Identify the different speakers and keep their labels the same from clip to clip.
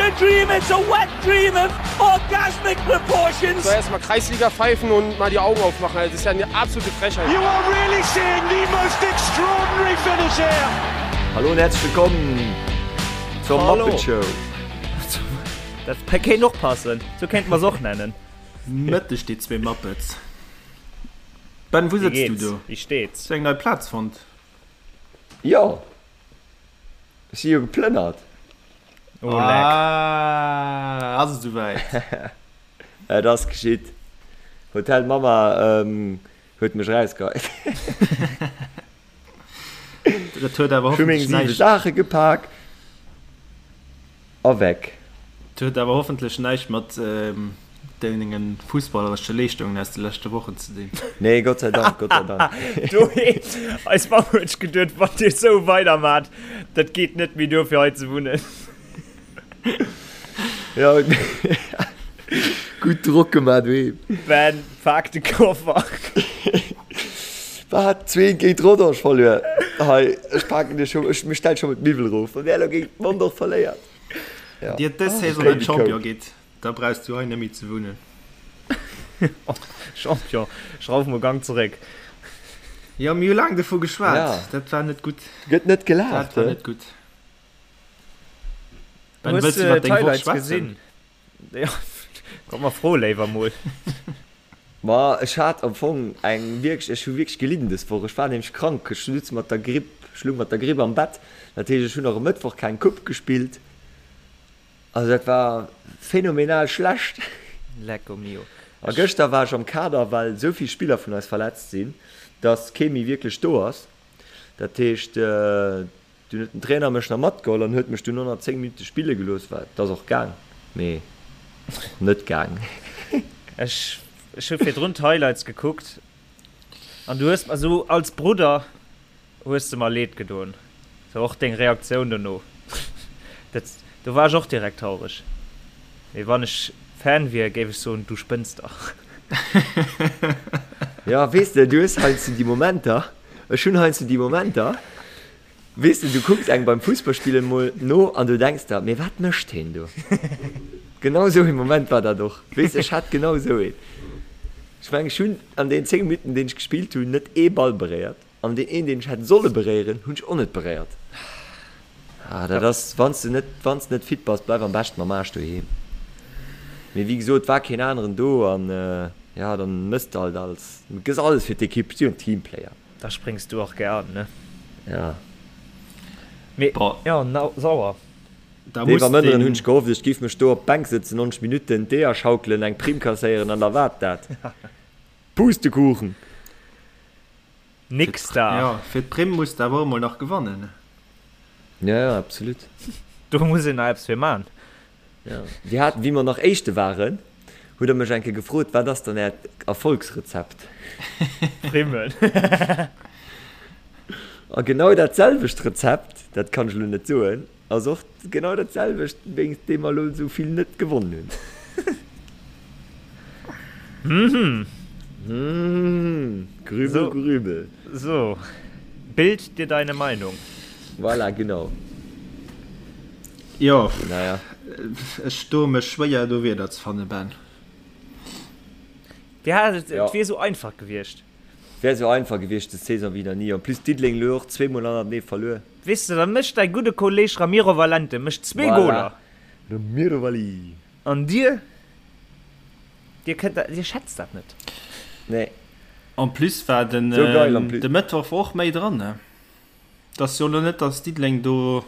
Speaker 1: a dream, it's a wet dream of orgasmic proportions.
Speaker 2: Soll erstmal Kreisliga pfeifen und mal die Augen aufmachen. Also, das ist ja eine absolute Frechheit.
Speaker 1: You are really seeing the most extraordinary finish here.
Speaker 3: Hallo und herzlich willkommen zur
Speaker 4: Hallo.
Speaker 3: Muppet Show.
Speaker 4: Dat kéint och passen, sou kéinte mer se och nennen.
Speaker 5: Mëtteg déi zwee Muppets. Ben, wou
Speaker 4: Wéi
Speaker 5: sëtz du
Speaker 4: geht's?
Speaker 5: do?
Speaker 4: Wéi steet's?
Speaker 5: Hues du eng nei Plaz fonnt?
Speaker 3: Jo, ech si jo geplënnert.
Speaker 4: Oh leck.
Speaker 5: Ah, ass et souwäit?
Speaker 3: Et ass geschitt. Hotel Mama huet mech erausgeheit.
Speaker 5: Dat huet awer
Speaker 3: Ech hu meng
Speaker 5: hoffentlech
Speaker 3: 7
Speaker 5: näischt.
Speaker 3: Saache gepak a weg.
Speaker 5: Dat huet awer hoffentlech näischt mat dengen fussballeresche Leeschtungen aus de leschte Wochen ze dinn.
Speaker 3: Nee, Gott sei Dank, Gott sei Dank.
Speaker 4: Do eis Mamm huet sech geduet, wann dir esou weidermaacht, dat geet net méi duer fir hei ze wunnen.
Speaker 3: Ja, gutt Drock gemaach doheem.
Speaker 4: Ben, pak de Koffer.
Speaker 3: Wat? Zwee géint Rodange verluer? Hei, ech paken dir scho, ech stell scho mol d'Miwwel erof, wann där elo géint Mondorf verléiert.
Speaker 5: Ja. Dir dës Saison net Champion gitt, da brauchs du hei net méi ze wunnen.
Speaker 4: Champion, schrauf mol Gang zeréck.
Speaker 5: Jo, mir hu laang dovu geschwat.
Speaker 3: Ja.
Speaker 5: Dat war net gutt.
Speaker 3: Gëtt net gelaacht,
Speaker 5: Dat war
Speaker 3: he?
Speaker 5: net gutt. Ben,
Speaker 4: Hues
Speaker 5: wëlls du
Speaker 4: de
Speaker 5: iwwer deng Woch
Speaker 4: d'Highlights
Speaker 5: schwätzen?
Speaker 4: gesinn? Ja, komm mer fro léiwer mol.
Speaker 3: Ma ech hat am Fong eng wierklech, ech hu wierklech gelidden dës Woch. Ech war nämlech krank, ech sutz mat der Gripp, ech lung mat der Gripp am Bett. Dat heescht, ech hunn och e Mëttwoch keng Coupe gespillt. Also dat war phänomenal schlecht.
Speaker 4: Lecco mio.
Speaker 3: A gëschter war ech am Kader, well esou vill Spiller vun eis verletzt sinn, dass kee méi wierklech do ass. Dat heescht, Dunn huet den Trainer mech nach matgeholl an huet mech dunn 110 Minutte spille gelooss. Wat, et ass och gaang, mee och net gaang.
Speaker 4: Ech ech hu virdrun d'Highlights gekuckt an du hues mer esou als Brudder hues de mer leed gedoen. Sou och deng Reaktioun dono, dat do war ech och direkt traureg. Mee wann ech Fan wier, géif ech soen, du spënns dach.
Speaker 3: Jo, weess de, du hues heiansdo déi Momenter, ech hunn heiansdo déi Momenter, Weess de, du kucks engem beim Fussballspillen mol no an du denks der, mee wat mécht heen do? Genau esou ee Moment war dat och. Weess de, ech hat genau esou een. Ech mengen, ech hunn an deenen 10 Minutten, deen ech gespillt hunn, net ee Ball beréiert an deen een, deen ech hätt solle beréieren, hunn ech och net beréiert. Ah, dat ass, wann s de net, wann s de net fit bass, bleif am beschten mam Aarsch doheem. Mee wéi gesot, war keen aneren do an, ja, dann mëss de halt alles, gëss alles fir d'Ekipp, si jo en Teamplayer.
Speaker 4: Da spréngs du och gär an, ne?
Speaker 3: Ja.
Speaker 4: Mee, jo, sauer.
Speaker 3: Dee Van Mënderen hunn ech gehofft, ech giff mech do op d'Bänk sëtzen, 90 Minutten d'Eeër schaukelen, eng Primm kasséieren an da waart dat. Pustekuchen!
Speaker 4: Nix da!
Speaker 5: Jo, fir d'Primm muss de awer och emol nach gewannen.
Speaker 3: Ja, ja, absolut.
Speaker 4: Do muss een nach eppes fir man.
Speaker 3: Ja. Dir hat, wéi mer nach Éischte waren, hutt Der mech eng Kéier gefrot, Wat ass dann Äert Erfolgsrezept?
Speaker 4: Primmen.
Speaker 3: A genau dat selwecht Rezept, dat kann ech elo net soen, ass och genau dat selwecht, wéinst deem mer elo esou vill net gewonnen hunn.
Speaker 4: Mhm.
Speaker 3: Mhm. Grübel,
Speaker 4: So.
Speaker 3: grübel.
Speaker 4: So, bild dir deine Meinung.
Speaker 3: Voilà, genau.
Speaker 5: Jo,
Speaker 3: Naja.
Speaker 5: ech doe mech schwéier do Wierder ze fannen, Ben.
Speaker 4: Ja, et
Speaker 3: Ja.
Speaker 4: wier esou einfach gewiescht.
Speaker 3: Wär esou einfach gewiescht des Saison wéi nach ni. En plus Diddeleng elo och zweemol hannertenee verluer.
Speaker 4: Weess de, da mécht däi gudde Kolleg Ramiro Valente mécht zwee
Speaker 3: Voilà.
Speaker 4: Goler.
Speaker 3: Ramiro Valli.
Speaker 4: An dir, dir kënnt dat, dir schätzt dat net.
Speaker 3: Nee.
Speaker 5: En plus war den
Speaker 3: Sou geil en plus.
Speaker 5: de Mëttwoch war och méi dran, ne? Et ass jo elo net, datt Diddeleng do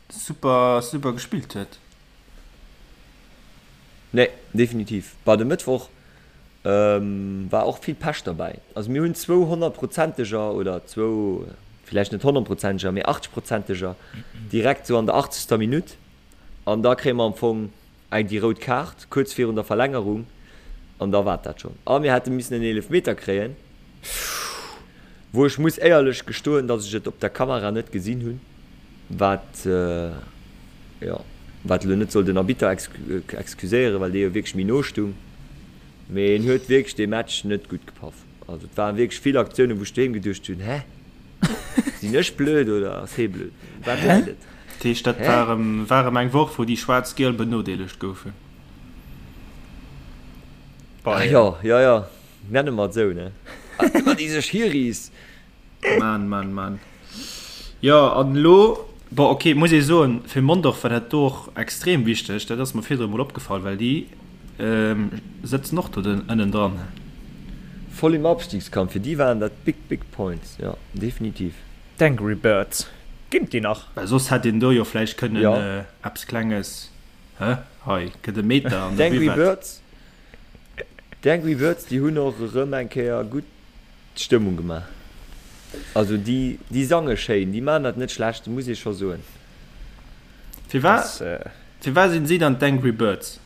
Speaker 5: super super gespillt huet.
Speaker 3: Nee, definitiv. Bah, de Mëttwoch war och vill Pech derbäi. Also mir hunn zwou honnertprozenteger oder zwou, villäicht net honnertprozenteger, mee achtzegsprozenteger direkt sou an der achtzegster Minutt. An da kréie mer am Fong eng déi rout Kaart kuerz virun der Verlängerung an da war et dat schonn. A mir hätte missen en Eelefmeter kréien, wou ech muss éierlech gestoen, datt ech et op der Kamera net gesinn hunn, wat, jo, wat elo net soll den Arbitter excuséieren, well dee jo wierklech méi no stung. Mee en huet wierklech dee Match net gutt gepaff. Also et waren wierklech vill Aktiounen, wou ech doheem geduecht hunn, Hä? Sinn ech blöd oder ass hee blöd? Wat läit et?
Speaker 5: Dat heescht, dat war erëm, war erëm eng Woch, wou déi Schwaarz-Giel benodeelegt goufen.
Speaker 3: Ah jo, jo, jo, nenne mer et esou, ne? Ëmmer déi sech Hiris.
Speaker 5: Mann, Mann, Mann. Jo, an elo, bon, ok, muss ee soen, fir Mondorf war dat do och extrem wichteg. Dat ass mer virdru emol opgefall, well déi sëtzen och do ënnendran.
Speaker 3: Voll im Abstiegskampf, fir déi waren dat big, big points, jo, definitiv.
Speaker 4: D'Angry Birds, ginn et déi nach?
Speaker 5: Well soss hätt een do jo vläicht kënnen eppes Klenges, hä, hei gëtt e Meter an der
Speaker 3: D'Angry Birds, d'Angry Birds, déi hunn och erëm eng Kéier gutt d'Stëmmung gemaach. Also déi, déi sange schéin, déi maachen dat net schlecht, muss ee scho soen.
Speaker 5: Firwat, firwat sinn si dann d'Angry Birds?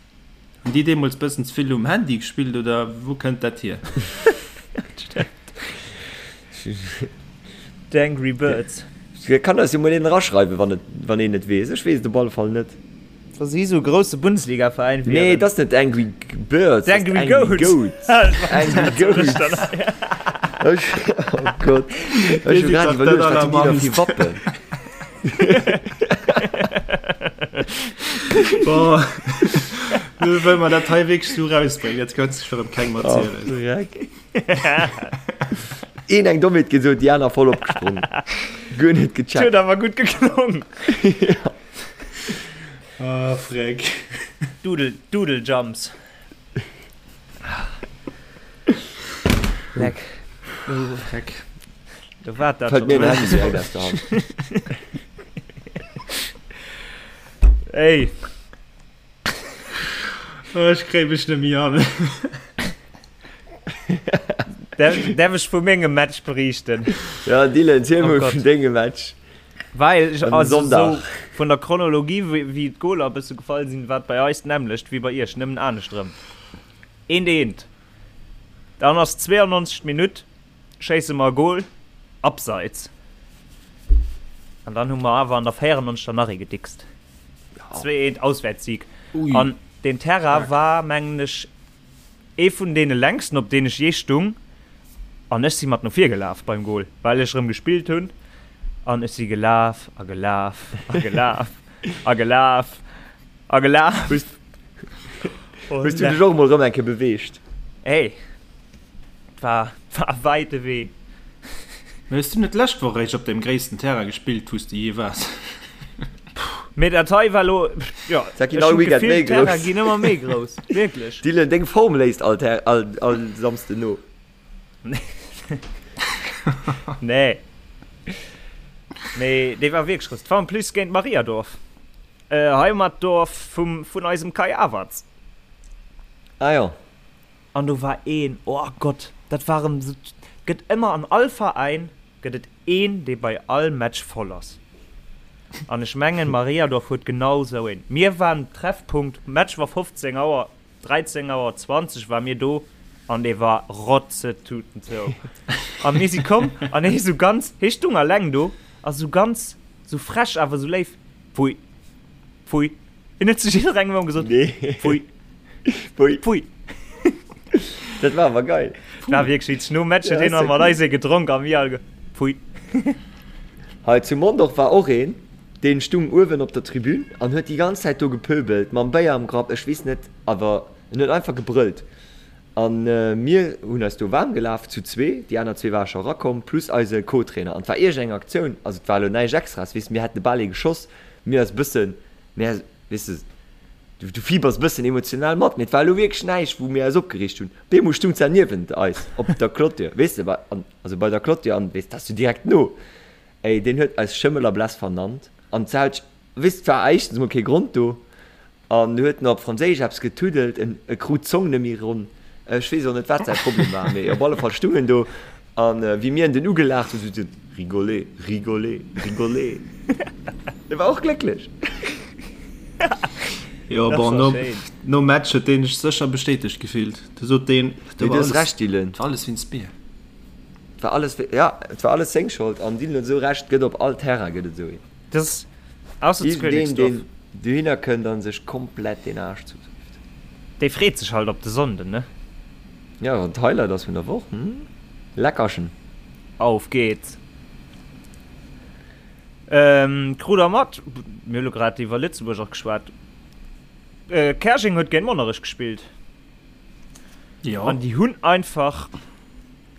Speaker 5: Hunn déi deemools bëssen ze vill um Handy gespillt oder wou kënnt dat hier?
Speaker 4: D'Angry Birds.
Speaker 3: Kann eis jo mol een eraschreiwen, wann et, wann een et weess. Ech weess et op alle Fall net.
Speaker 4: Wa si sou e grousse Bundesliga-Veräin
Speaker 3: wieren. Nee, et ass net Angry Birds, et ass
Speaker 4: Angry Goats.
Speaker 3: Angry Goats. Ech, oh Gott. Ech hu grad iwwerluecht, wat hunn déi da fir Wappen?
Speaker 5: Boah. Nu wëll mer dat hei wierklech sou rausbréngen, dat kënnt sech erëm kengem erzielen.
Speaker 3: Oh, Dreck. Een eng Dommheet gesot, déi aner voll opgesprong. Guer net gecheckt.
Speaker 4: Huet awer gutt geklongen.
Speaker 3: Ja.
Speaker 5: Ah, Freck.
Speaker 4: Doodle, Doodle Jumps. Leck.
Speaker 5: Freck.
Speaker 4: Do war dat
Speaker 3: Fällt mir den Handy direkt aus der Hand.
Speaker 4: Ey.
Speaker 5: Oh, ech kréie mech net méi an.
Speaker 4: Därf ech vu mengem Match beriichten?
Speaker 3: Ja, Dylan, ziel
Speaker 4: Oh
Speaker 3: mol
Speaker 4: Gott.
Speaker 3: vun dengem Match.
Speaker 4: Well ech
Speaker 3: Am
Speaker 4: also
Speaker 3: Sonntag.
Speaker 4: sou vun der Chronologie wéi wéi d'Goler e bësse gefall sinn, war et bei eis d'nämmlecht wéi bei iech, nëmmen anescht erëm. Eent eent. Dann ass 92. Minutt, schéisse mer e Gol, Abseits. An dann hu mer awer an der 94. nach ee gedickst. 2 eent Auswäertssieg.
Speaker 5: Ui.
Speaker 4: An deen Terrain war mengen ech Ee vun deene längsten op deen ech jee stung, an ech si mat no vir gelaf beim Goal, well ech erëm gespillt hunn, an ech si gelaf a gelaf a gelaf a gelaf a gelaf.
Speaker 3: Hues hues du dech och emol erëm eng Kéier beweegt?
Speaker 4: Hey, et war war e wäite Wee.
Speaker 5: Mee hues du net d'lescht Woch eréischt op deem gréissten Terrain gespillt, wou s de jee waars?
Speaker 4: Mee dat hei war lo, jo,
Speaker 3: Dat ginn
Speaker 4: ech
Speaker 3: all
Speaker 4: hunn
Speaker 3: Weekend
Speaker 4: d'Gefill,
Speaker 3: méi
Speaker 4: d'Terraine
Speaker 3: grouss.
Speaker 4: ginn ëmmer méi grouss, wierklech.
Speaker 3: Dylan, deng Form léisst all, all, all Samsden no.
Speaker 4: Nee. Mee dee war wierklech grouss. Et war en plus géint Mariadorf, Heimatdorf vum, vun eisem Kai Havertz.
Speaker 3: Ah jo.
Speaker 4: An do war een, oh Gott, dat war erëm esou, gëtt ëmmer an all Veräin gëtt et een, dee bei all Match voll ass. An ech mengen, Mariadorf huet genau esou een. Mir waren Treffpunkt, Match war 15 Auer, 13 Auer 20 ware mir do an dee war rotzetuten zou. A mir si komm an hee sou ganz, hee stung alleng do a sou ganz, sou frech awer sou léif, Pfui, pfui. Hien huet zu jidderengem ëmmer gesot,
Speaker 3: Nee.
Speaker 4: Pfui.
Speaker 3: Pfui.
Speaker 4: Pfui.
Speaker 3: Dat war awer geil.
Speaker 4: War wierklech witzeg. Nom Match huet
Speaker 3: Ja,
Speaker 4: hien nach
Speaker 3: ass
Speaker 4: mat eis ee gedronk a mir all ge, Pfui.
Speaker 3: Hei zu Mondorf war och een, deen stung uewen op der Tribün an huet déi ganz Zäit do gepöbelt, mam Béier am Grapp, ech weess net, awer en huet einfach gebrëllt. An mir hunn eis do waarm gelaf zu zwee, déi aner zwee ware scho erakomm, plus eise Co-Trainer. An et war iergend eng Aktioun, also et war elo näischt Extraes, weess, mir hätten de Bal ee geschoss, mir eis e bëssen, Mä, weess de, du, du fibers e bëssen emotional mat, mee et war elo wierklech näischt, wou mir eis opgereegt hunn. Op eemol stung d'Sar niewent eis op der Clôture, weess de, bei, an, also bei der Clôture, an, weess, dat ass jo direkt no. Ey, deen huet eis Schëmmel a Bless vernannt, an d'Sar huet, weess, et war éischtens emol kee Grond do, an huet nach op Franséisch eppes getuddelt, en, e krut d'Zong net méi ronn. Ech weess och net, wat säi Problem war, mee op alle Fall stung en do. An wéi mir en dunn ugelaacht hunn, sot en, Rigolez, rigolez, rigolez. E war och glécklech.
Speaker 5: Jo, bon, nom, nom Match huet deen sech sécher bestätegt gefillt. Du sot deen,
Speaker 3: Mee du hues Recht, Dylan.
Speaker 5: Et war alles wéinst mir.
Speaker 3: Et war alles, ja, et war alles seng Schold. An Dylan huet esou Recht, et gëtt op all Terrain gëtt et esou een.
Speaker 4: Das Ausser zu
Speaker 3: Iergendeen,
Speaker 4: Königsdorf.
Speaker 3: deen dohinner kënnt a sech komplett den Aarsch zudréift.
Speaker 4: Dee freet sech halt op de Sonnden, ne?
Speaker 3: Ja, wann d'Highlight ass vun der Woch, hm? Leckerchen!
Speaker 4: Auf geht's! Krut der mat, mir hu lo grad iwwer Lëtzebuerg och geschwat, Käerjeng huet géint Monnerech gespillt.
Speaker 5: Jo.
Speaker 4: An déi hunn einfach,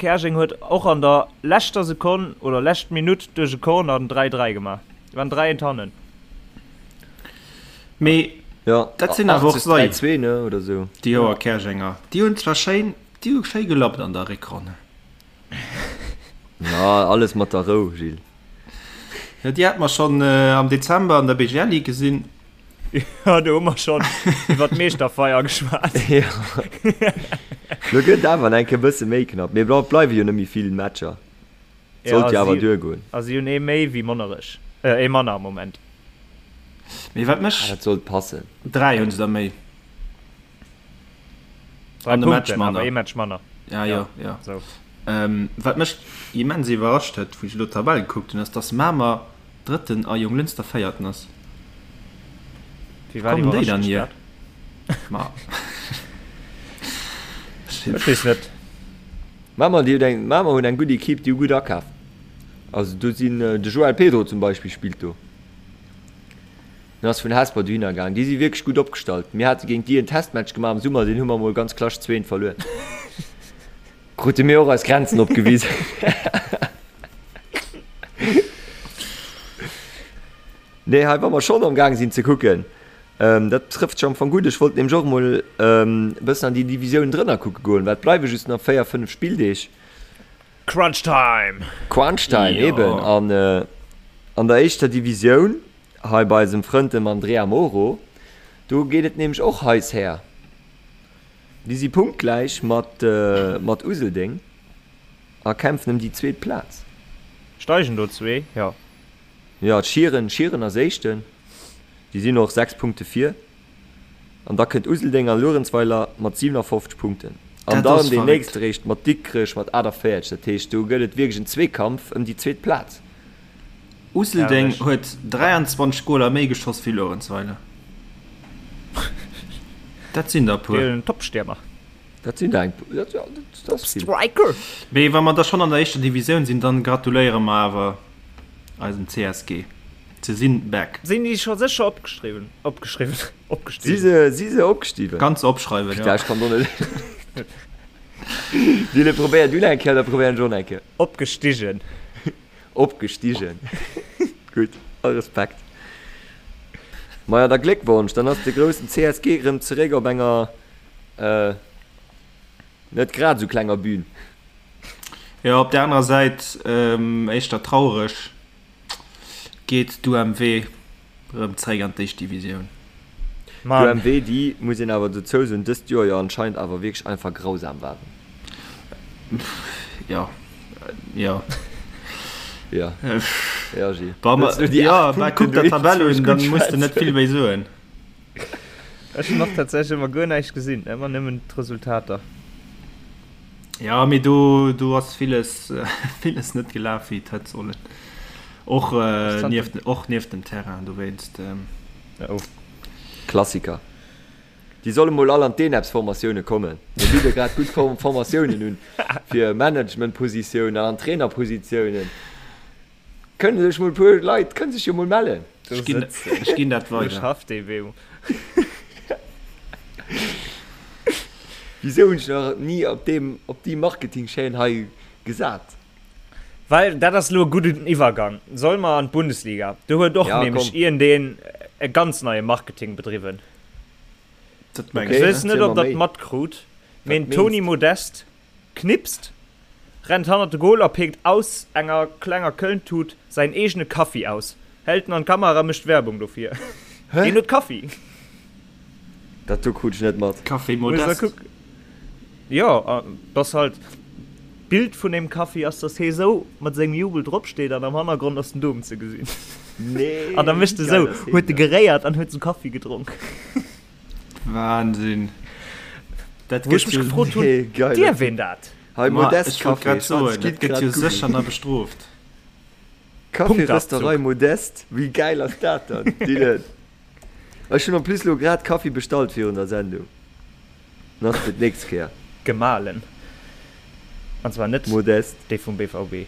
Speaker 4: Käerjeng huet och an der leschter Sekonn oder lescht Minutt duerch e Corner den 3, 3 gemaach. Déi waren 3 eent hannen.
Speaker 5: Mee
Speaker 3: Ja,
Speaker 5: dat sinn awer och
Speaker 3: 80,
Speaker 5: sei,
Speaker 3: 3, 2, ne, oder sou.
Speaker 5: déi Joer Käerjenger. Déi hunn zwar schéin, déi hu schéi gelappt an der Réckronn.
Speaker 3: Ja, alles mat der Rou, Gilles.
Speaker 5: Jo, déi hate mer schonn am Dezember an der BGL Ligue gesinn.
Speaker 4: Jo, do hu mer schonn iwwer d'Meeschterfeier geschwat.
Speaker 3: Jo. Lo gëtt et awer nach eng Kéier e bësse méi knapp. Mee et bleiwe jo net méi vill Matcher. Sollt jo awer duergoen.
Speaker 4: A si hunn ee méi wéi Monnerech. Ee manner am Moment.
Speaker 5: Mee wat mech.
Speaker 3: Ah, dat sollt passen.
Speaker 5: 3 hunn se der méi.
Speaker 4: 3
Speaker 5: An e Match
Speaker 4: Punkten,
Speaker 5: manner.
Speaker 4: awer ee Match manner.
Speaker 5: Ja, jo, jo.
Speaker 4: Sou.
Speaker 5: Wat mech immens iwwerrascht huet, wou ech elo d'Tabell gekuckt hunn, ass, dass Mamer Drëtten a Jonglënster Véierten ass.
Speaker 4: Wéi
Speaker 5: Wou
Speaker 4: wat
Speaker 5: kommen déi
Speaker 4: iwwerrascht
Speaker 5: dann
Speaker 4: dech
Speaker 5: hier?
Speaker 4: dat?
Speaker 5: Ma.
Speaker 4: Ech weess net.
Speaker 3: Mamer, déi huet eng, Mamer hunn eng gutt Equipe, déi hu gutt akaf. Also do sinn, de Joel Pedro zum Beispill spillt do. En ass vun Hesper dohinner gaang. Déi si wierklech gutt opgestallt. Mir hate géint déi en Testmatch gemaach am Summer, deen hu mer mol ganz klasch 2 verluer. Krute mir och eis Grenzen opgewisen. Nee, hei wa mer schonn am Gaang sinn ze kucken, dat trëfft sech am Fong gutt. Ech wollt nämlech och emol e bëssen an déi Divisiounen drënner kucke goen, well et bleiwe just nach 4, 5 Spilldeeg.
Speaker 4: Crunch Time!
Speaker 3: Crunch Time,
Speaker 5: Jo.
Speaker 3: eben. An an der éischter Divisioun, hei bei eisem Frënd dem Andrea Moro, do geet et nämlech och heiss her. Déi si punktgläich mat mat Useldeng a kämpfen ëm déi zweet Plaz.
Speaker 4: Steigen do zwee? Jo.
Speaker 3: Jo, Schieren, Schieren ass Éischten, déi sinn och 6 Punkte vir. An da kënnt Useldeng a Luerenzweiler mat 57 Punkten. An
Speaker 5: Dat
Speaker 3: dann
Speaker 5: ass
Speaker 3: deen
Speaker 5: verréckt.
Speaker 3: nächste réischt mat Dikrech mat 48. Dat heescht, do gëtt et wierklech en Zweekampf ëm déi zweet Plaz.
Speaker 5: Useldeng
Speaker 4: Herrlech.
Speaker 5: huet 23 Goler méi geschoss wéi Luerenzweiler. Dat sinn der e puer.
Speaker 4: Deen Topstiermer.
Speaker 3: Dat sinn der eng puer. Dat, dat ass vill.
Speaker 4: Striker!
Speaker 5: Mee wa mer da schonn an der éischter Divisioun sinn, dann gratuléiere mer awer eisem CSG. Se sinn back.
Speaker 4: Sinn déi scho sécher opgeschriwwen? Opgeschriwwen?
Speaker 3: Si
Speaker 4: Opgestigen?
Speaker 3: se, si se opgestiwen?
Speaker 5: Kanns opschreiwen, jo.
Speaker 3: Putain, ech kann do net. Dylan, probéier du eng Kéier, da probéieren ech och eng Kéier.
Speaker 4: Opgestigen.
Speaker 3: Opgestigen. Gutt, all Respekt. Maja, da Gléckwonsch, dann ass de groussen CSG erëm zeréck op enger net grad esou klenger Bühn.
Speaker 5: Jo, op der anerer Säit éischter traureg, geet d'UMW erëm zeréck an d'éischt Divisioun.
Speaker 4: Mann.
Speaker 3: D'UMW, déi, muss een awer dozou soen, dëst Joer jo anscheinend awer wierklech einfach grausam waren.
Speaker 5: Jo, jo.
Speaker 3: Jo, jo, Gilles.
Speaker 5: Wa mer,
Speaker 3: Wëlls du déi
Speaker 5: jo,
Speaker 3: 8
Speaker 5: mä
Speaker 3: Punkten
Speaker 5: kuck der
Speaker 3: do
Speaker 5: d'Tabell
Speaker 3: eens
Speaker 5: un, dann
Speaker 3: gutt
Speaker 5: muss de net
Speaker 3: schwätzen?
Speaker 5: vill méi soen.
Speaker 4: Ech hunn och tatsächlech ëmmer guer näischt gesinn, ëmmer nëmmen d'Resultater.
Speaker 5: Jo, mee do, do ass villes, villes net gelaf, wéi et hätt sollen. Och, nieft, och nieft dem Terrain, dowéinst.
Speaker 4: Oh.
Speaker 3: Klassiker. Déi solle mol all an d'ENEPS-Formatioune kommen. Mir bidde grad gutt Formatiounen un fir Managementpositiounen an Trainerpositiounen. Kënne sech mol e puer Leit kënne sech jo mol mellen.
Speaker 5: Ech ginn, ech ginn dat
Speaker 4: Do
Speaker 5: weider.
Speaker 4: schafft ee wéi.
Speaker 3: Wisou hunn ech nach ni op deem, op déi Marketing-Chaîne hei gesat?
Speaker 4: Well dat ass elo e gudden Iwwergang. Solle mer an d'Bundesliga? Do huet och
Speaker 3: Ja,
Speaker 4: nämlech
Speaker 3: komm.
Speaker 4: iergendeen e ganz neie Marketing bedriwwen.
Speaker 5: Dat mengs
Speaker 3: Okay,
Speaker 4: Ech weess
Speaker 5: de?
Speaker 4: net,
Speaker 3: erziel
Speaker 4: ob
Speaker 3: mer
Speaker 4: der
Speaker 3: méi.
Speaker 4: et matkrut, mee
Speaker 3: Wat
Speaker 4: den Toni
Speaker 3: meengs de?
Speaker 4: Modeste knipst, rennt hannert de Goal a péckt aus enger klenger Köln-Tut säin eegene Kaffi aus, hält en an d'Kamera a mécht Werbung dofir.
Speaker 3: Hä?
Speaker 4: Deen huet Kaffi!
Speaker 3: Dat do krut ech net mat.
Speaker 5: Café
Speaker 4: Muss der
Speaker 5: Modeste.
Speaker 4: kucken. Jo, et ass halt d'Bild vun deem Kaffi ass, dass hee sou mat sengem Jubel drop steet an am Hannergrond ass den Dom ze gesinn.
Speaker 3: Nee,
Speaker 4: An da mécht
Speaker 3: wéi
Speaker 4: e
Speaker 3: geil
Speaker 4: sou,
Speaker 3: ass heen
Speaker 4: huet e
Speaker 3: dann?
Speaker 4: geréiert an huet sou Kaffi gedronk.
Speaker 5: Wahnsinn. Dat
Speaker 4: Wou ech
Speaker 5: gëtt
Speaker 4: mech
Speaker 5: jo.
Speaker 4: gefrot hunn,
Speaker 3: Nee, geiler
Speaker 4: dierf
Speaker 3: Typ.
Speaker 4: een dat?
Speaker 3: Hei,
Speaker 5: Ma
Speaker 3: Modest
Speaker 5: ech wollt
Speaker 3: Café,
Speaker 5: grad
Speaker 3: schwatz,
Speaker 5: soen, dat
Speaker 3: gitt
Speaker 5: gëtt
Speaker 3: grad
Speaker 5: jo
Speaker 3: googlen.
Speaker 5: sécher nach bestrooft.
Speaker 3: Café-Rösterei
Speaker 4: Punktabzug.
Speaker 3: Modest, wéi geil ass dat dann, Dylan? Ech hunn en plus lo grad Kaffi bestallt virun der Sendung. Nach fir d'nächst Kéier.
Speaker 4: Gemalen. An zwar net
Speaker 3: Modest.
Speaker 4: déi vum BVB.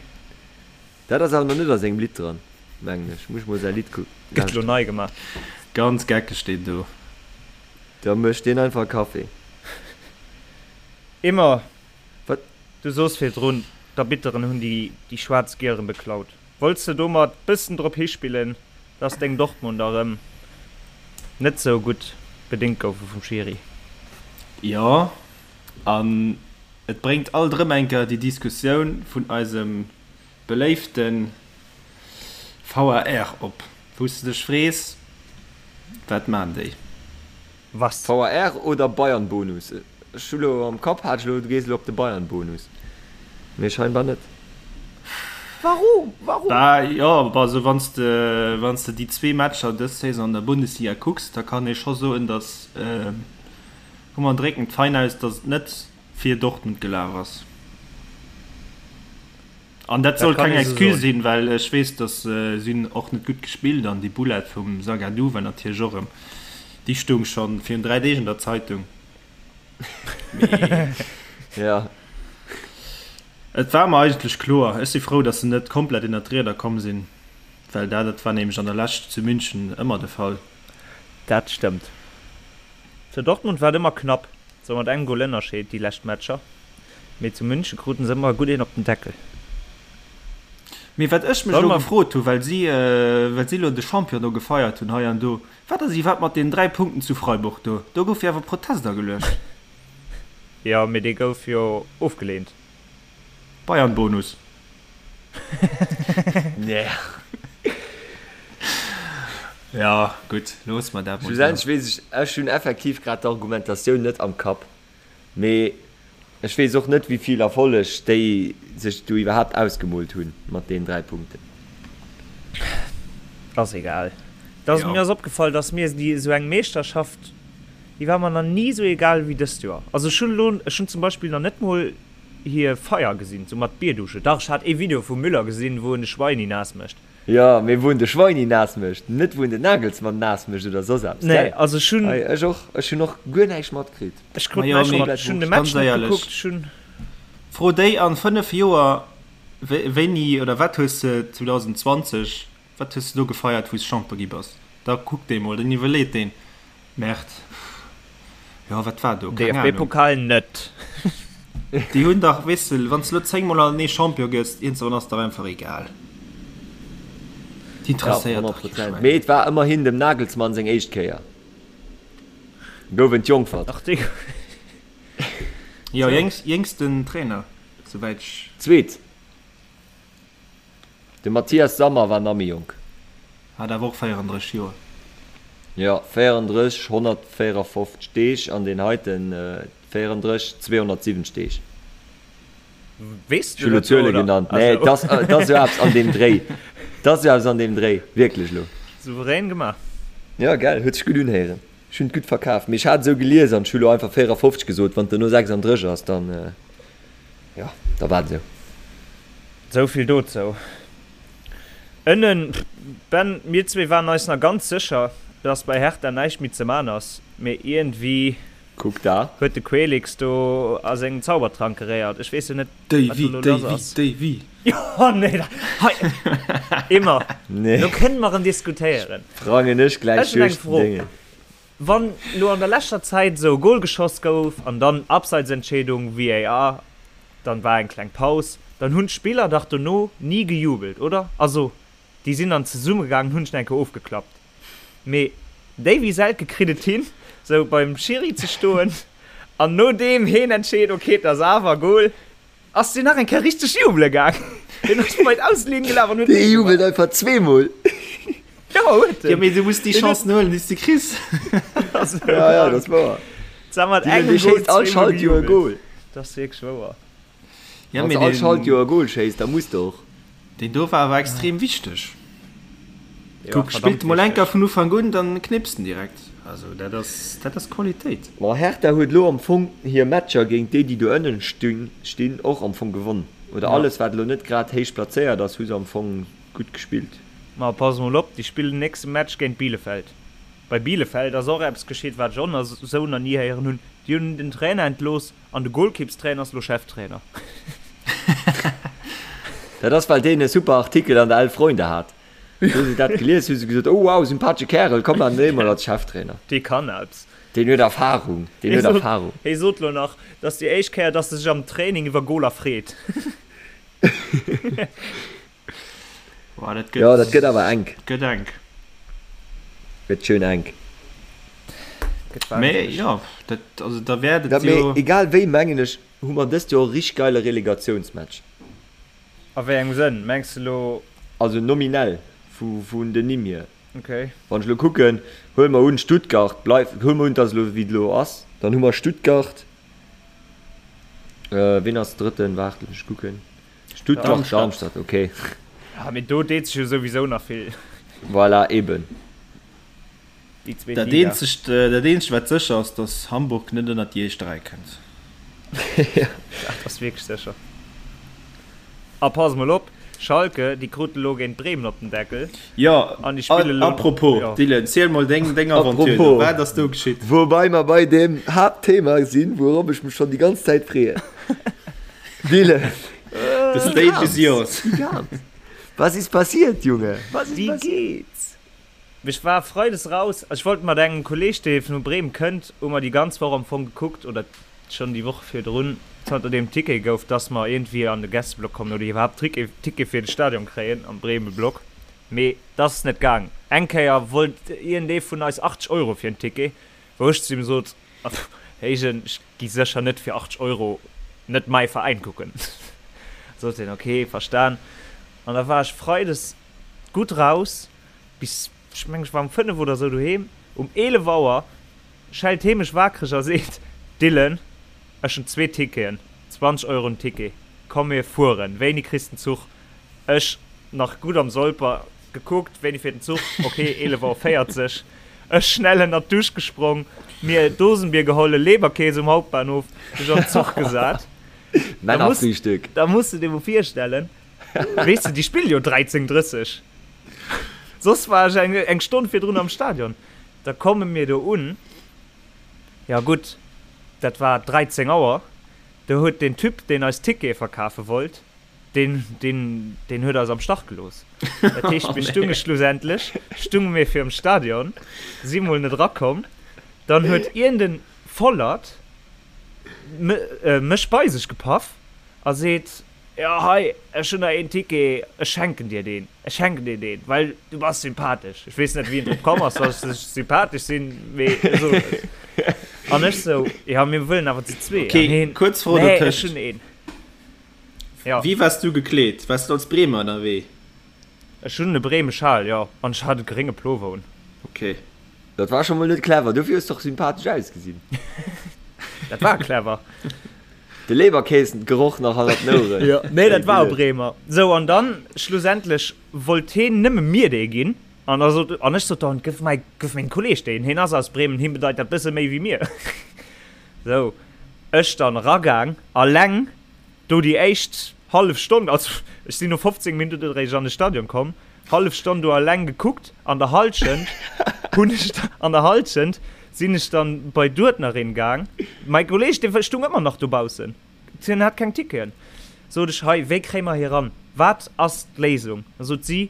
Speaker 3: Dat ass awer nach net a sengem Lidd dran. Mengen ech. Muss ech mol säi Lidd kucken.
Speaker 4: Gëtt lo nei gemaach.
Speaker 5: Ganz geckeg deen do.
Speaker 3: Da mécht deen einfach Café.
Speaker 4: Immer.
Speaker 3: Wat?
Speaker 4: Du soos virdrun, d'Arbitteren hunn déi déi schwaarz Gieren beklaut. Wollts de domat bëssen drop hispillen, dass deng Dortmunder erëm net sou gutt bedéngt goufe vum Schiri?
Speaker 5: Jo, an et bréngt alt erëm eng Kéier déi Diskussioun vun eisem beléifte VAR op, wou s de dech frees, Wat maan déi?
Speaker 4: Was?
Speaker 3: VAR oder Bayern-Bonus? Ech hu lo am Kapp, hat ech lo, du gees elo op de Bayern-Bonus, mee scheinbar net.
Speaker 4: Warum? Warum?
Speaker 5: Bah jo, also wann s de, wann s de déi zwee Matcher dës Saison an der Bundesliga kucks, da kann ee scho soen, datt, komm mer drécken et fein aus, datt et net fir Dortmund gelaf ass. An dat soll keng Excuse sinn, well ech weess, datt si hunn och net gutt gespillt an déi Boulette vum Zagadou war natierlech och erëm, déi stoung scho virun 3 Deeg an der Zeitung. Mee
Speaker 3: ja.
Speaker 5: Et war mer eigentlech kloer. Ech si frou, datt se net komplett ënnert d'Rieder komm sinn, well dat dat war nämlech an der Lescht zu München ëmmer de Fall.
Speaker 4: Dat stëmmt. Zu Dortmund war et ëmmer knapp, sou mat engem Gol Ënnerscheed déi lescht Matcher. Mee zu München kruten se ëmmer gutt een op den Deckel.
Speaker 5: Mee wat ech mech elo gefrot hu, well si well si elo de Champion do gefeiert hunn hei an do, wat ass iwwerhaapt mat deenen 3 Punkten zu Freiburg do? Do gouf jo awer Protest ageluecht.
Speaker 4: Jo, mee dee gouf jo ofgeleent.
Speaker 5: Bayern-Bonus.
Speaker 3: Nee.
Speaker 5: Jo, gutt, loosse mer dat mol esou.
Speaker 3: Schlussendlech weess ech, ech hunn effektiv grad d'Argumentatioun net am Kapp. Mee ech weess och net, wéi vill Erfolleg déi sech do iwwerhaapt ausgemoolt hunn mat deenen 3 Punkten.
Speaker 4: Ass egal. Dass, mir ass opgefall, dass mir déi esou eng Meeschterschaft, déi war mer nach ni esou egal wéi dëst Joer. Also ech hunn elo, ech hunn zum Beispill nach net mol hir Feier gesinn, sou mat Bierdusche. Dach, ech hat ee Video vum Müller gesinn, wou en de Schweini naass mécht.
Speaker 3: Jo, mee wou en de Schweini naass mécht, net wou en den Nagelsmann naass mécht oder soss eppes,
Speaker 4: Nee,
Speaker 3: gell?
Speaker 4: also ech hunn.
Speaker 3: Hei, ech och, ech hunn och guer näischt matkritt.
Speaker 4: Ech krut
Speaker 5: Majo,
Speaker 4: näischt
Speaker 5: mee
Speaker 4: mat, ech hunn de
Speaker 5: ganz
Speaker 4: Match net
Speaker 5: éierlech,
Speaker 4: gekuckt, ech hunn.
Speaker 5: Fro déi an 5 Joer, wéini oder wat hues de 2020, wat hues de do gefeiert wou s Champion gi bass? Da kuckt dee mol, dann iwwerleet deen, Merde, jo wat war do, keng Ahnung.
Speaker 4: DFB-Pokal net.
Speaker 5: Déi hunn dach, weess de, wann s de elo 10 mol hannertenee Champion gëss, iergendwann ass dach einfach egal. Déi
Speaker 3: Ja,
Speaker 5: interesséiert dach
Speaker 3: 100
Speaker 5: kee
Speaker 3: Prozent.
Speaker 5: Schwäin.
Speaker 3: Mee et war ëmmerhin dem Nagelsmann seng éischt Kéier. Gouf entjongfert.
Speaker 4: Ach dee.
Speaker 5: Jo,
Speaker 4: Sou.
Speaker 5: jéngsten Trainer, souwäit ech.
Speaker 3: Zweet. De Matthias Sammer war nach méi jonk.
Speaker 5: Hat awer och 34 Joer.
Speaker 3: Jo, 34, 154 Deeg an deen heiten 34, 270 Deeg.
Speaker 4: Weess
Speaker 3: Ech
Speaker 4: du
Speaker 3: hu lo
Speaker 4: dat elo,
Speaker 3: Zuele
Speaker 4: oder?
Speaker 3: genannt. Nee,
Speaker 4: Also.
Speaker 3: et ass, et ass esou eppes an deem Dréi. Et ass esou eppes an deem Dréi, wierklech elo.
Speaker 4: Souverän gemaach.
Speaker 3: Jo, gell, huet sech gutt unhéieren. Ech hunn et gutt verkaf. Mee ech hat esou gelies an ech hu lo einfach 54 gesot. Wann et duerno 36 ass, dann. Jo, da war et esou.
Speaker 4: Esou vill dozou. Ënnen, Ben, mir zwee waren eis nach ganz sécher, dass bei Hertha näischt méi ze man ass, mee iergendwéi
Speaker 3: Kuck da.
Speaker 4: huet de Quelix do a sengem Zaubertrank geréiert. Ech weess jo net, wat do
Speaker 5: Déi,
Speaker 4: elo
Speaker 5: déi,
Speaker 4: lass ass.
Speaker 5: déi, déi.
Speaker 4: Jo, nee, da, hei, immer,
Speaker 3: Nee.
Speaker 4: lo kënne mer erëm diskutéieren.
Speaker 3: Sprangen ech gläich
Speaker 4: Ech hunn eng
Speaker 3: duerch den
Speaker 4: Fro.
Speaker 3: Déngen.
Speaker 4: Wann lo an der leschter Zäit esou e Gol geschoss gouf an dann Abseitsentscheedung, VAR, dann war eng kleng Paus, dann hunn d'Spiller dach dono ni gejubelt, oder? Also déi sinn dann zesumme gaangen, hunn sech nach eng Kéier ofgeklappt. Mee Davy Selke kritt et hin, sou beim Schiri ze stoen an nodeem heen entscheet, ok et ass awer Gol, Ass deen nach eng Kéier richteg jubele gaang? Deen ass bei d'Auslinn gelaf an huet
Speaker 3: Dee jubelt einfach zweemol.
Speaker 4: Jo, huet en.
Speaker 5: Jo, mee du muss déi Chancen huelen, déi s de kriss.
Speaker 3: Ja, ja, dat ass wouer.
Speaker 4: Zwar mat
Speaker 3: Deen,
Speaker 4: engem
Speaker 3: dee
Speaker 4: Goal
Speaker 3: schéisst all
Speaker 4: zweemol
Speaker 3: Schaltjoer e
Speaker 4: gejubelt.
Speaker 3: Goal.
Speaker 4: Dat ass wierklech wouer.
Speaker 5: Ja,
Speaker 3: Wann
Speaker 5: mee
Speaker 3: s all
Speaker 5: deen,
Speaker 3: Schaltjoer e Goal schéisst, da muss de och.
Speaker 5: deen do war awer extrem wichteg.
Speaker 4: Jo,
Speaker 5: Kuck,
Speaker 4: verdammt
Speaker 5: spillt emol
Speaker 4: wichteg.
Speaker 5: enker vun Ufank un, dann knipst en direkt. Also dat ass, dat ass Qualitéit.
Speaker 3: Ma Hertha huet elo am Fong hir Matcher géint déi, déi do ënnen stinn, och am Fong gewonn. Oder
Speaker 4: Ja.
Speaker 3: alles, wat elo net grad héich plazéiert ass, hu se am Fong gutt gespillt.
Speaker 4: Ma pass mol op, déi spillen den nächste Match géint Bielefeld. Bei Bielefeld ass och eppes geschitt, wat ech och nach esou nach ni héieren hunn, Déi hunn den Trainer entlooss an de Golkippstrainer ass elo Cheftrainer.
Speaker 3: Dat ass, well deen e super Artikel an der Elf Freunde hat. Hu se dat gelies, hu se gesot, oh wow, sympathesche Kärel, komm an dee mol als Cheftrainer.
Speaker 4: Dee kann eppes.
Speaker 3: Deen huet Erfahrung, deen huet Erfahrung.
Speaker 4: Hie sot lo nach, dat ass déi éischt Kéier, dass e sech am Training iwwer Goler freet.
Speaker 5: Boah, dat gëtt,
Speaker 3: Jo, dat gëtt awer enk.
Speaker 5: Gëtt enk.
Speaker 3: Gëtt schön enk.
Speaker 4: Gëtt
Speaker 5: Mee
Speaker 4: wahnsinneg.
Speaker 5: jo, dat, also da wäert et
Speaker 3: Dat, mee
Speaker 5: jo.
Speaker 3: egal wéi, mengen ech, hu mer dëst Joer e richteg geile Relegatiounsmatch.
Speaker 4: A wéi engem Sënn? Mengs de lo.
Speaker 3: Also nominell, vu, vun den Nimm hier.
Speaker 4: Okay.
Speaker 3: Wann ech elo kucken, huele mer un, Stuttgart bleift, huele mer un, et ass elo wéi et elo ass, dann hu mer Stuttgart, wien ass Drëtten, waart, looss mech kucken, Stuttgart, Darmstadt, okay.
Speaker 4: Ja, mee do deet sech jo souwisou nach vill.
Speaker 3: Voilà, eben.
Speaker 4: Déi zweet
Speaker 5: Dat
Speaker 4: Liga.
Speaker 5: eenzegt, dat eenzegt wat sécher ass, datt Hamburg net ënnert déi éischt 3 kënnt.
Speaker 4: Dat ass wierklech sécher. A pass mol op, Schalke, déi kruten elo géint Bremen op den Deckel.
Speaker 5: Jo,
Speaker 4: An déi spille elo.
Speaker 5: a propos,
Speaker 4: Jo.
Speaker 5: Dylan, ziel mol deng, deng Aventure do.
Speaker 3: Apropos,
Speaker 5: Wat ass do geschitt?
Speaker 3: Woubei mer bei deem Haaptthema sinn, wourop ech mech schonn déi ganz Zäit freeën. Dylan,
Speaker 5: The
Speaker 3: wie
Speaker 5: stage is
Speaker 3: kam's?
Speaker 5: yours.
Speaker 3: Wie kam's? Was ist passiert, Junge? Was ist
Speaker 4: Wie
Speaker 3: passiert?
Speaker 4: geht's? Ech war freides raus, ech wollt mat engem Kolleg, dee vu Bremen kënnt, hu mer déi ganz Woch am Fong gekuckt, oder schonn déi Woch virdrun, zanter deem Ticket gouf, dass mer iergendwéi an de Gästeblock kommen oder iwwerhaapt Ticket fir de Stadion kréien am Bremen-Block. Mee dat ass net gaang. Eng Kéier wollt iergendee vun eis 80 Euro fir en Ticket, wou ech zu him sot, Héijen, ech gi sécher net fir 80 Euro net mäi Veräin kucken. Sot hien, ok, verstan. An da war ech freides gutt raus. Bis, ech mengen, ech war um 5 oder sou doheem. Um 11 Auer schellt hee mech wakereg a seet, Dylan, ech hunn zwee Ticketen, 20 Euro den Ticket, komm mir fueren. Wéini kriss den Zuch? Ech, nach gutt am Solper, gekuckt, wéini fiert den Zuch? Ok, 11 Auer 40. Ech schnell ënnert d'Dusch gesprong, mir Dosenbier geholl, e Leberkäs um Hauptbahnhof, mech an den Zuch gesat.
Speaker 3: Männerfrühstück.
Speaker 4: Da muss de dir mol virstellen, Weess de, déi spillen jo 13:30. Soss war ech eng, eng Stonn virdrun am Stadion. Da komme mir do un. Ja gutt, dat war 13 Auer. Do huet deen Typ, deen eis Tickete verkafe wollt, deen, deen, deen huet eis am Stach gelooss. Dat heescht, mir stunge schlussendlech, stunge mir virum Stadion, si mol net erakomm. Dann huet iergend e Vollert mech bei sech gepaff a seet, Jo, hei, ech hunn der een Ticket, ech schenken dir deen, ech schenken dir deen, well du bass sympathesch. Ech weess net, wéi en drop komm ass, dass ech sympathesch sinn, mee e sot et. An ech sou, Jo, mir wëllen awer zu zwee.
Speaker 5: Okay,
Speaker 4: An hien,
Speaker 5: kuerz Fro
Speaker 4: Nee, ech
Speaker 5: dotëscht.
Speaker 4: hunn een. Jo.
Speaker 5: Wéi waars du gekleet? Waars du als Bremer ënnerwee?
Speaker 4: Ech hunn e Bremeschal, jo, an ech hat e grénge Plover un.
Speaker 5: Okay.
Speaker 3: Dat war scho mol net clever, dofir hues de och sympathesch ausgesinn.
Speaker 4: Dat war clever.
Speaker 3: De Leberkäsen-Geroch nach hannert den Oueren.
Speaker 4: Jo, nee, dat war e Bremer. Sou, an dann schlussendlech wollt heen nëmme mir dee ginn. An da sot, an ech sot dann, gëff mäi, gëff mengem Kolleg deen, heen ass aus Bremen, him bedeit dat bësse méi wéi mir. Sou, ech dann eragaang, alleng do déi éischt hallef Stonn, also ech sinn no 15 Minutten eréischt an de Stadion komm, hallef Stonn do alleng gekuckt, an der Halschent hunn ech, an der Halschent sinn ech dann bei d'Uerdnerin gaang, mäi Kolleg dee stung ëmmer nach dobaussen, hien hat keng Ticketen, sot ech, hei wéi kréie mer hie ran, wat ass d'Léisung? Da sot si,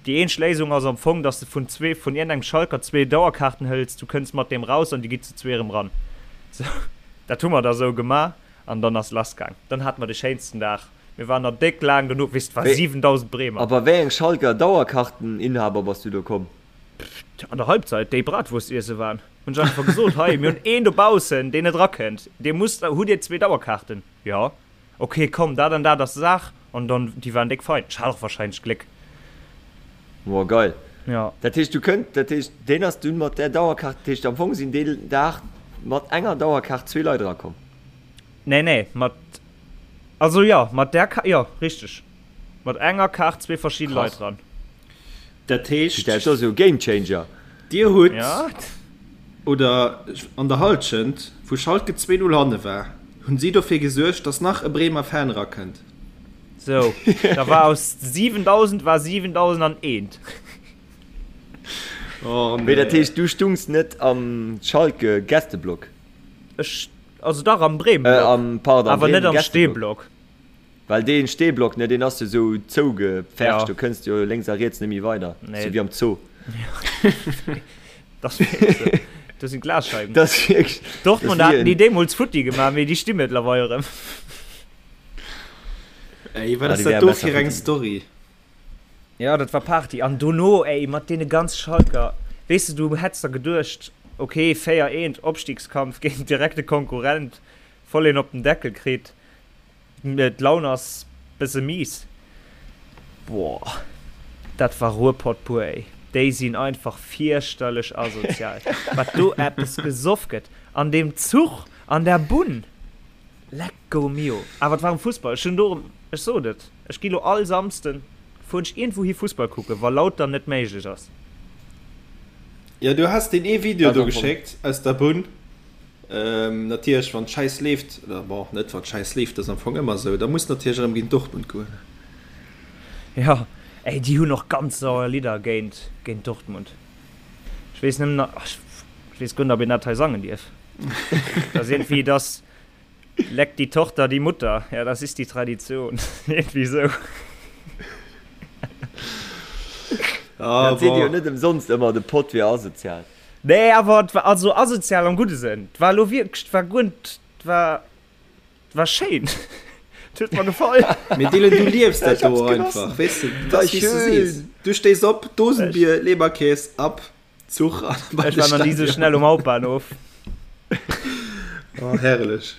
Speaker 4: déi eenzeg Léisung ass am Fong, dass de vun zwee, vun iergendengem Schalker zwee Dauerkaarten hëls, du kënns mat deem raus an dir gitt zu zwee erëm ran. Sou, dat hu mer da sou gemaach an dann ass lass gaang. Dann hate mer de schéinsten Dag. Mir waren nach déck laang dono, weess, et war 7.000 Bremer.
Speaker 3: A bei wéi engem Schalker Dauerkarteninhaber bass du do komm?
Speaker 4: An der Halbzeit, déi Bratwurst iesse waren, hunn ech einfach gesot, hei, mir hunn een dobaussen, deen net erakënnt, dir musst, hutt dir zwee Dauerkaarten? Jo. Ok, komm, dat an dat ass d'Saach. An dann, déi waren déck fein. Ech hat och wahrscheinlech Gléck.
Speaker 3: Woah, geil.
Speaker 4: Jo.
Speaker 3: Dat heescht, du kënnt, dat heescht, deen ass dunn mat där Dauerkaart, dat heescht, am Fong sinn deen Dag mat enger Dauerkaart zwee Leit erakomm?
Speaker 4: Nee, nee, mat Also jo, mat där Ka jo, richteg. Mat enger Kaart zwee verschidde Leit
Speaker 3: Krass.
Speaker 4: dran.
Speaker 5: Dat heescht.
Speaker 3: Dat ass jo e Gamechanger.
Speaker 5: Dir hutt,
Speaker 4: Ja.
Speaker 5: oder an der Halschent, wou Schalke 2, 0 hanne war, hunn si dofir gesuergt, datt nach e Bremer Fan erakënnt.
Speaker 4: Sou, da war aus 7.000 war 7.001.
Speaker 5: Oh
Speaker 3: Mee dat
Speaker 5: nee.
Speaker 3: heescht, du stungs net am Schalke-Gästeblock?
Speaker 4: Ech, also dach am Bremen-Block,
Speaker 3: Äh, am, pardon, am
Speaker 4: awer net am
Speaker 3: Bremen-Gästeblock.
Speaker 4: Stehblock.
Speaker 3: Well dee Steeblock, ne, deen ass jo sou zougepfercht, do kënns de jo lénks a riets net méi weider, sou wéi am Zoo.
Speaker 4: Dat ass wierklech sou. Do sinn Glasscheiwen.
Speaker 3: Dat ass wierklech.
Speaker 4: Dortmund haten déi deemools futti gemaach, mee déi sti mëttlerweil erëm.
Speaker 5: Ey, wat ass dat do fir eng Story?
Speaker 4: Jo, dat war Party. An dono, ey, mat deene ganz Schalker, weess de, du hätts der geduecht, ok, 4, eent, Opstiegskampf géint direkte Konkurrent, voll een op den Deckel kritt. D'Laun ass besse mies. Boah, dat war Ruhrpott pur ey. Déi sinn einfach fierchterlech asozial. Wat do eppes gesoff gëtt an deem Zuch, an der Bunn. Lecco mio. Awer et war um Fussball. Ech hunn do erëm, ech sot et, ech gi lo all Samsden, fueren ech iergendwou hi Fussball kucken, wa Lautern net méiglech ass.
Speaker 5: Jo, du has deen ee Video do geschéckt aus der Bunn. Natierlech wann d'Schäiss leeft, oder bon, net wann d'Schäiss leeft, dat ass am Fong ëmmer esou, da muss natierlech erëm géint Dortmund goen.
Speaker 4: Jo, ey, déi hunn och ganz sauer Lidder géint, géint Dortmund. Ech weess nëmmen nach, ech weess guer net, ob een dat hei sangen dierf. Dat ass iergendwéi, dass leckt die Tochter die Mutter, ja, das ist die Tradition, iergendwéi esou.
Speaker 3: Dat seet ee jo net ëmsonst ëmmer, de Pott wier asozial.
Speaker 4: Nee, awer et war also asozial am gudde Sënn. Et war elo wierklech, et war guer net, et war, et war schéin. Et huet mer gefall.
Speaker 5: Mee Dylan, du liefs dat do och einfach, weess de, dat ass wéi s du sees. Du stéis op, Dosenbier, Leberkäs, ab Zuch an
Speaker 4: bei de Stadion. Ech war nach ni sou schnell um Hauptbahnhof.
Speaker 5: Oh, herrlech.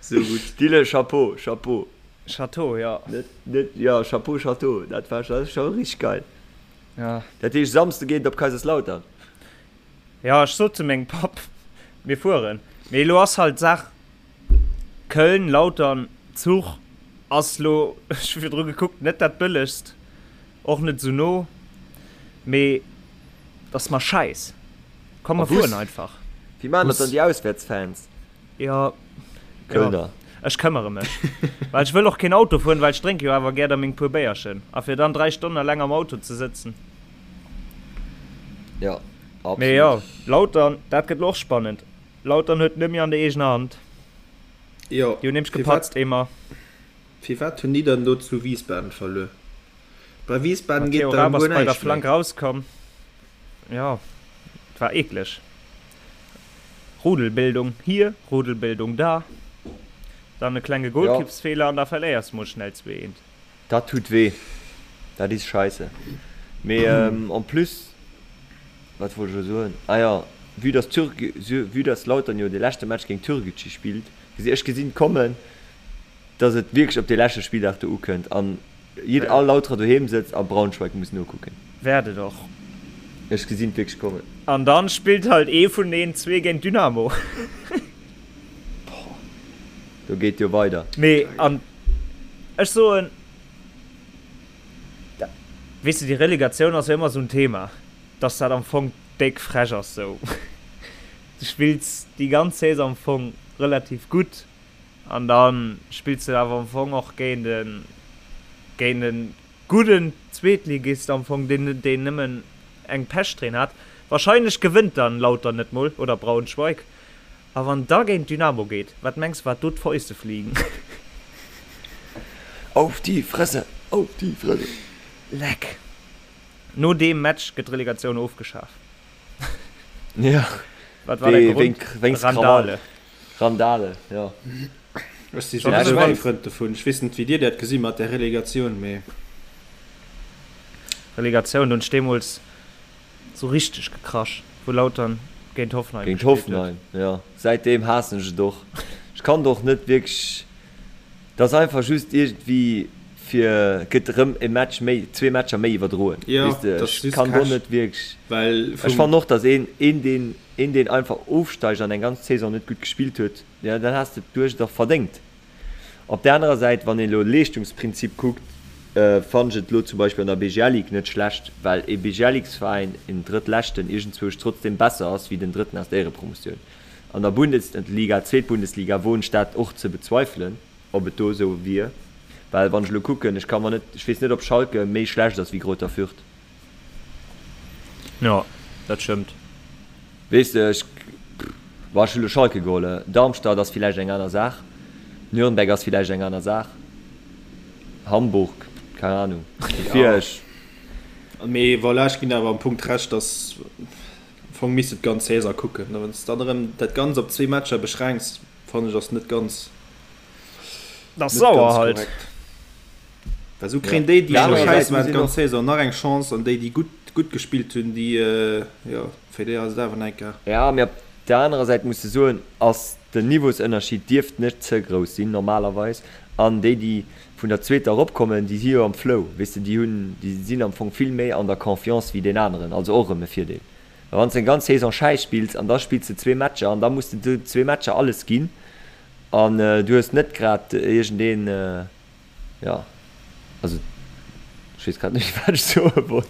Speaker 5: Sou gutt.
Speaker 3: Dylan, Chapeau, Chapeau.
Speaker 4: Chateau, jo.
Speaker 3: Net, net, jo, Chapeau, Chateau, dat war, dat ass scho richteg geil.
Speaker 4: Ja.
Speaker 3: Dat heescht, Samsde geet et op Kaiserslautern?
Speaker 4: Jo, ech sot zu mengem Papp, mir fueren. Mee elo ass halt d'Saach, Köln, Lautern, Zuch ass lo, ech hu virdru gekuckt, net dat bëllegst, och net esou no, mee et ass mer schäiss. Komm mer fueren einfach.
Speaker 3: Wéi maachen dat dann déi Auswäertsfans?
Speaker 4: Jo, jo, ech këmmere mech. Well ech wëll och keen Auto fueren, well ech drénke jo awer gär da meng puer Béierchen. A fir dann 3 Stonnen eleng am Auto ze sëtzen.
Speaker 3: Jo,
Speaker 4: absolut. Mee jo, Lautern, dat gëtt lo och spannend. Lautern huet net méi an der eegener Hand.
Speaker 5: Jo.
Speaker 4: Déi hunn nämlech gepatzt, émmer.
Speaker 5: Firwat hunn déi dann do zu Wiesbaden verluer? Bei Wiesbaden geet der
Speaker 4: guer näischt méi. Matteo Raab ass bei der Flank rauskomm. Jo, et war eekleg. Rudelbildung hier, Rudelbildung da, dann e klenge Golkippsfeeler an da verléiers mol schnell 2, 1.
Speaker 3: Dat tut weh, dat is scheisse. Mee en plus, wat wollt ech elo soen, ah jo, vue dass Türk, vue dass Lautern jo de leschte Match géint Türkgücü spillt, gesi ech gesinn kommen, dass et wierklech op dee leschte Spilldag do ukënnt an jidder, all Lauterer doheem sëtzt a Braunschweig muss nokucken.
Speaker 4: Wäert et och.
Speaker 3: Ech gesinn et wierklech kommen.
Speaker 4: An dann spillt halt ee vun den zwee géint Dynamo.
Speaker 3: Boah, do geet jo weider.
Speaker 4: Mee an ech soen, weess de, déi Relegatioun ass jo ëmmer esou en Thema, dass dat am Fong déck frech ass sou. Du spills déi ganz Saison am Fong relativ gutt An da spills de awer am Fong och géint e géint e gudden Zweetligist am Fong, deen deen nëmmen eng Pechsträhn hat. Wahrscheinlech gewënnt dann Lautern net mol oder Braunschweig. A wann da géint Dynamo geet, wat mengs wat do d'Fäuste fliegen?
Speaker 3: Auf die Fresse! Auf die Fresse!
Speaker 4: Leck! No deem Match gëtt d'Relegatioun ofgeschaf.
Speaker 3: Ja.
Speaker 4: Wat war der Grond?
Speaker 3: Wéinst Randale. Randale, jo.
Speaker 5: Ech si souwisou kee Frënd dovun. Ech weess net, wéi dir dat gesi mat där Relegatioun, mee.
Speaker 4: Relegatioun, do hunn ech deemools sou richteg gekrasch, wou Lautern géint Hoffenheim
Speaker 3: Géint gespillt huet. Hoffenheim, jo. Säitdeem haassen ech et och. Ech kann et och net wierklech, et ass einfach just iergendwéi fir, et gëtt erëm e Match méi, zwee Matcher méi iwwerdroen,
Speaker 5: Jo,
Speaker 3: weess de.
Speaker 5: dat ass
Speaker 3: Ech
Speaker 5: just
Speaker 3: kann do
Speaker 5: Cash,
Speaker 3: net wierklech,
Speaker 5: well
Speaker 3: ech
Speaker 5: vum.
Speaker 3: fannen och, datt een, een deen Een deen einfach ofsteigt an eng ganz Saison net gutt gespillt huet, jo dann has de et duerch och verdéngt. Op där anerer Säit, wann een elo Leeschtungsprinzip kuckt, fannen ech et elo zum Beispill an der BGL Ligue net schlecht, well ee BGL-Ligue-Veräin, een Drëttleschten, iergendzwousch trotzdem besser ass wéi den Drëtten aus der Éierepromotioun. An der Bundesliga, Zweetbundesliga, woen ech dat och ze bezweifelen, ob et do esou wier, well wann ech elo kucken, ech ka mer net, ech weess net ob Schalke méi schlecht ass wéi Greuther Fürth.
Speaker 4: Jo, dat stëmmt.
Speaker 3: Weess de, ech, bon, ech hu lo Schalke geholl. Darmstadt ass villäicht eng aner Saach. Nürnberg ass villäicht eng aner Saach. Hamburg, keng Ahnung. Dofir ech.
Speaker 5: Mee voilà, ech ginn awer am Punkt Recht, dass am Fong misst de d'ganz Saison kucken. A wann s de dann erëm dat Ganzt op zwee Matcher beschränks, fannen ech ass net ganz,
Speaker 4: Dat ass sauer halt.
Speaker 5: Well sou kréien déi, déi scho schäiss waren d'ganz Saison, nach eng Chance an déi, déi gutt, gutt gespillt hunn, déi, jo, fir déi ass et awer nach eng Kéier.
Speaker 3: Ja, mee op der anerer Säit muss de soen, ass den Niveausënnerschied dierft net ze grouss sinn normalerweis an déi, déi vun der zweeter eropkommen, déi si jo am Flow, weess de, déi hunn, déi sinn am Fong vill méi an der Confiance wéi deen aneren, also och erëm e Virdeel. Well wann s de eng ganz Saison schäiss spills an da spills de zwee Matcher an da muss de do zwee Matcher alles ginn an du hues net grad iergendeen, jo, also ech weess grad net méi wat ech soe wollt,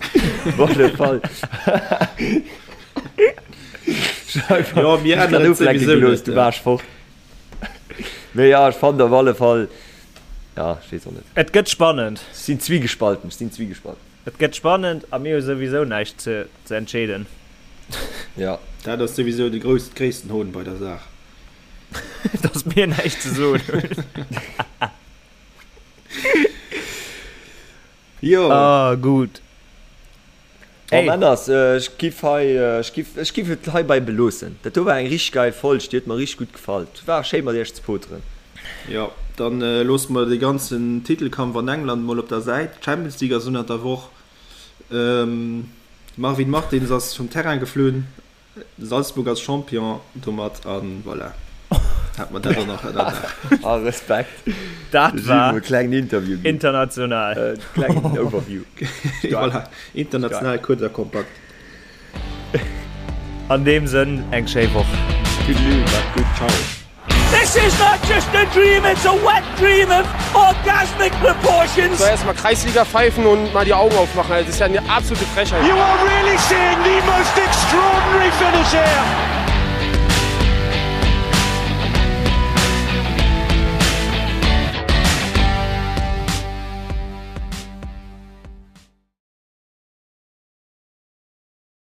Speaker 3: op alle Fall.
Speaker 5: Jo, mir änneren et souwisou net.
Speaker 3: Du waars fort. Mee jo, ech fannen op alle Fall, ja, ech weess och net.
Speaker 4: Et gëtt spannend.
Speaker 3: Ech sinn zwiegespalten, ech sinn zwiegespalten.
Speaker 4: Et gëtt spannend a mir hu souwisou näischt ze ze entscheeden.
Speaker 3: Ja.
Speaker 5: Dat ass souwisou de grouss, gréissten Hohn bei der Saach.
Speaker 4: Dass mir näischt ze soen hunn.
Speaker 5: Jo.
Speaker 4: Ah, gutt.
Speaker 3: Bon Männers, ech giff hei, ech giff, ech giff et heibei beloossen. Dat do war eng richteg geil Folg, déi huet mer richteg gutt gefall. Et war schéi mat iech ze poteren.
Speaker 5: Jo, dann loosse mer dee ganzen Titelkampf an England mol op der Säit. D'Champions League ass ënnert der Woch. Marvin Martins ass vum Terrain geflunn. Salzburg ass Champion domat an voilà. Hat mer dat och nach ënnerdaach.
Speaker 3: Ah Respekt.
Speaker 4: Dat war
Speaker 3: e klengen Interview
Speaker 4: ginn. International.
Speaker 3: E klengen Overview.
Speaker 5: Voilà, international kuerz a kompakt.
Speaker 4: An deem Sënn, eng schéi Woch.
Speaker 3: Toodaloo, maacht gutt, ciao.
Speaker 1: This is not just a dream, it's a wet dream of orgasmic proportions.
Speaker 2: So erstmal Kreisliga pfeifen und mal die Augen aufmachen. Das ist ja eine absolute Frechheit.
Speaker 1: You are really seeing the most extraordinary finish here.